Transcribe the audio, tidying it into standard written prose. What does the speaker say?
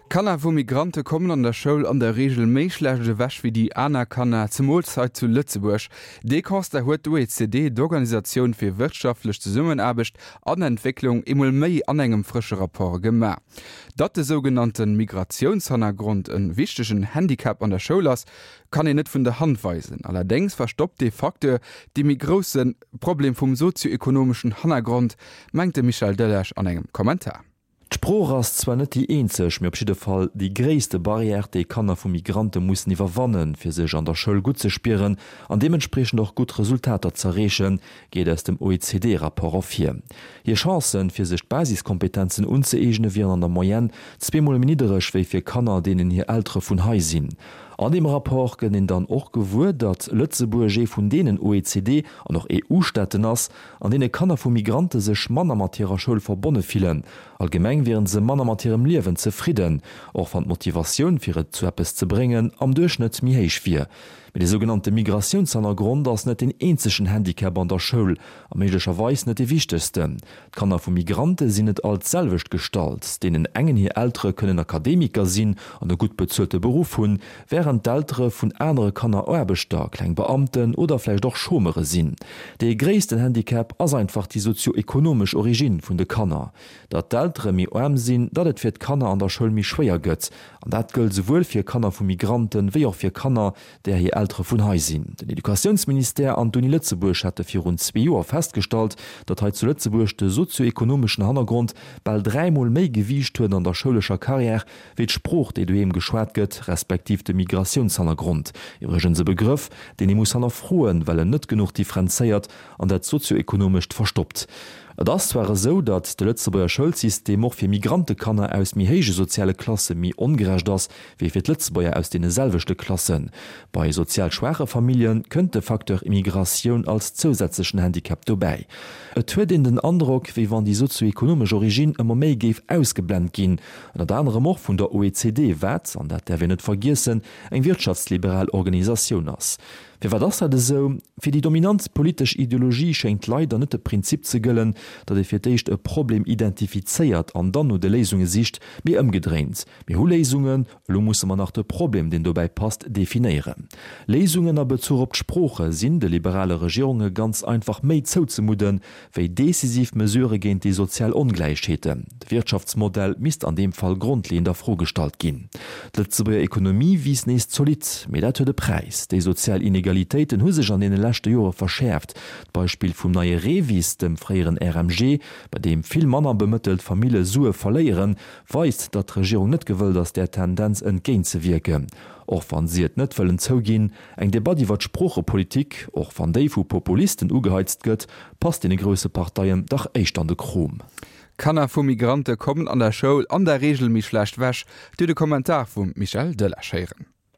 Kanner vu Migrante kommen an der Schoul an der Reegel méi schlecht ewech wéi déi aner Kanner, zemools hei zu Lëtzebuerg. Dee Constat huet d'OECD, d'Organisatioun fir wirtschaftlech Zesummenaarbecht an Entwécklung, eemol méi an engem frësche Rapport gemaach. Datt de sougenannte Migratiounshannergrond e wichtegen Handicap an der Schoul ass, kann een net vun der Hand weisen. Allerdéngs verstoppt dee Facteur dee méi grousse Problem vum sozio-ekonomeschen Hannergrond, mengt de Michel Delage an engem Kommentar. D'Sprooch ass zwar net déi eenzeg, mee op jidde Fall déi gréisste Barrière, déi Kanner vu Migrante mussen iwwerwannen, fir sech an der Schoul gutt ze spieren an deementspriechend och gutt Resultater z'erreechen, geet aus dem OECD-Rapport ervir. Hir Chancen, fir sech d'Basiskompetenzen unzëeegne wieren an der Moyenne zweemol méi niddereg wéi fir Kanner, deenen hir Eltere vun hei sinn. An deem Rapport gëtt een dann och gewuer, datt Lëtzebuerg ee vun deenen OECD an och EU-Staaten ass, an deene Kanner vu Migrante sech manner mat hirer Schoul verbonne fillen. Allgemeng wieren se manner mat hirem Liewen zefridden, och wann d'Motivatioun fir et zu eppes ze bréngen am Duerchschnëtt méi héich wier. Mee de sougenannte Migratiounshannergrond ass net deen eenzegen Handicap an der Schoul a méiglecherweis net dee wichtegsten. D'Kanner vu Migrante sinn net all d'selwecht gestallt. Deenen engen hir Eltere kënnen Akademiker sinn an e gutt bezuelte Beruff hunn, wärend d'Eltere vun anere Kanner Aarbechter, kleng Beamten oder vläicht och Chômeure sinn. Dee gréissten Handicap ass einfach déi sozio-ekonomesch Origine vun de Kanner. Datt d'Eltere méi aarm sinn, datt et fir d'Kanner an der Schoul méi schwéier gëtt. An dat gëllt souwuel fir Kanner vu Migranten, wéi och fir Kanner, där hir Eltere vun hei sinn. Den Educatiounsministère an d'Uni Lëtzebuerg hate virun zwee Joer festgestallt, datt hei zu Lëtzebuerg de sozio-ekonomeschen Hannergrond bal dräimol méi Gewiicht huet an der schoulescher Carrière wéi d'Sprooch, déi doheem geschwat gëtt, respektiv de Migratiounshannergrond. Iwwregens e Begrëff, deen ee muss hannerfroen, well en net genuch differenzéiert an dat Sozio-ekonomescht verstoppt. Et ass zwar esou, datt de Lëtzebuerger Schoulsystem och fir Migrantekanner aus méi héije soziale Klasse méi ongerecht ass, wéi fir d'Lëtzebuerger aus deene selwechte Klassen. Bei sozial schwaache Famillje kënnt de Facteur Immigratioun als zousätzlechen Handicap dobäi. Et huet een den Androck, wéi wann déi sozio-ekonomesch Origine ëmmer méi géif ausgeblent ginn, ënnert anerem och vun der OECD, wat, an dat däerf een net vergiessen, eng wirtschaftsliberal Organisatioun ass. Firwat ass dat esou? Fir déi dominant politesch Ideologie schéngt leider net de Prinzip ze gëllen, datt ee fir d'éischt e Problem identifizéiert an dann no de Léisunge sicht, mee ëmgedréint, Mir hu Léisungen, elo musse mer nach de Problem, deen dobäi passt, definéieren. Léisungen a Bezuch op d'Sprooche sinn de liberale Regierunge ganz einfach méi zouzemudden, wéi decisiv Mesurë géint déi sozial Ongläichheeten. De Wirtschaftsmodell misst an deem Fall grondleeënd a Fro gestallt ginn. D'Lëtzebuerger Ekonomie wiisst nees zolidd, mee dat huet e Präis. Déi sozial Inegalitéiten hu sech an deene leschte Jore verschäerft. D'Beispill vum neie REVIS, dem fréieren RMG, bei deem vill manner bemëttelt Famille Sue verléieren, weist, datt d'Regierung net gewëllt ass, där Tendenz entgéintzewierken. Och wann si et net wëllen zouginn, Eng Debatt iwwer d'Sproochepolitik, och wann déi vu Populisten ugeheizt gëtt, passt deene grousse Parteien dach éischter an de Krom. Kanner vu Migrante kommen an der Schoul an der Reegel méi schlecht wech, Dir de Kommentar vum Michel Delage héieren.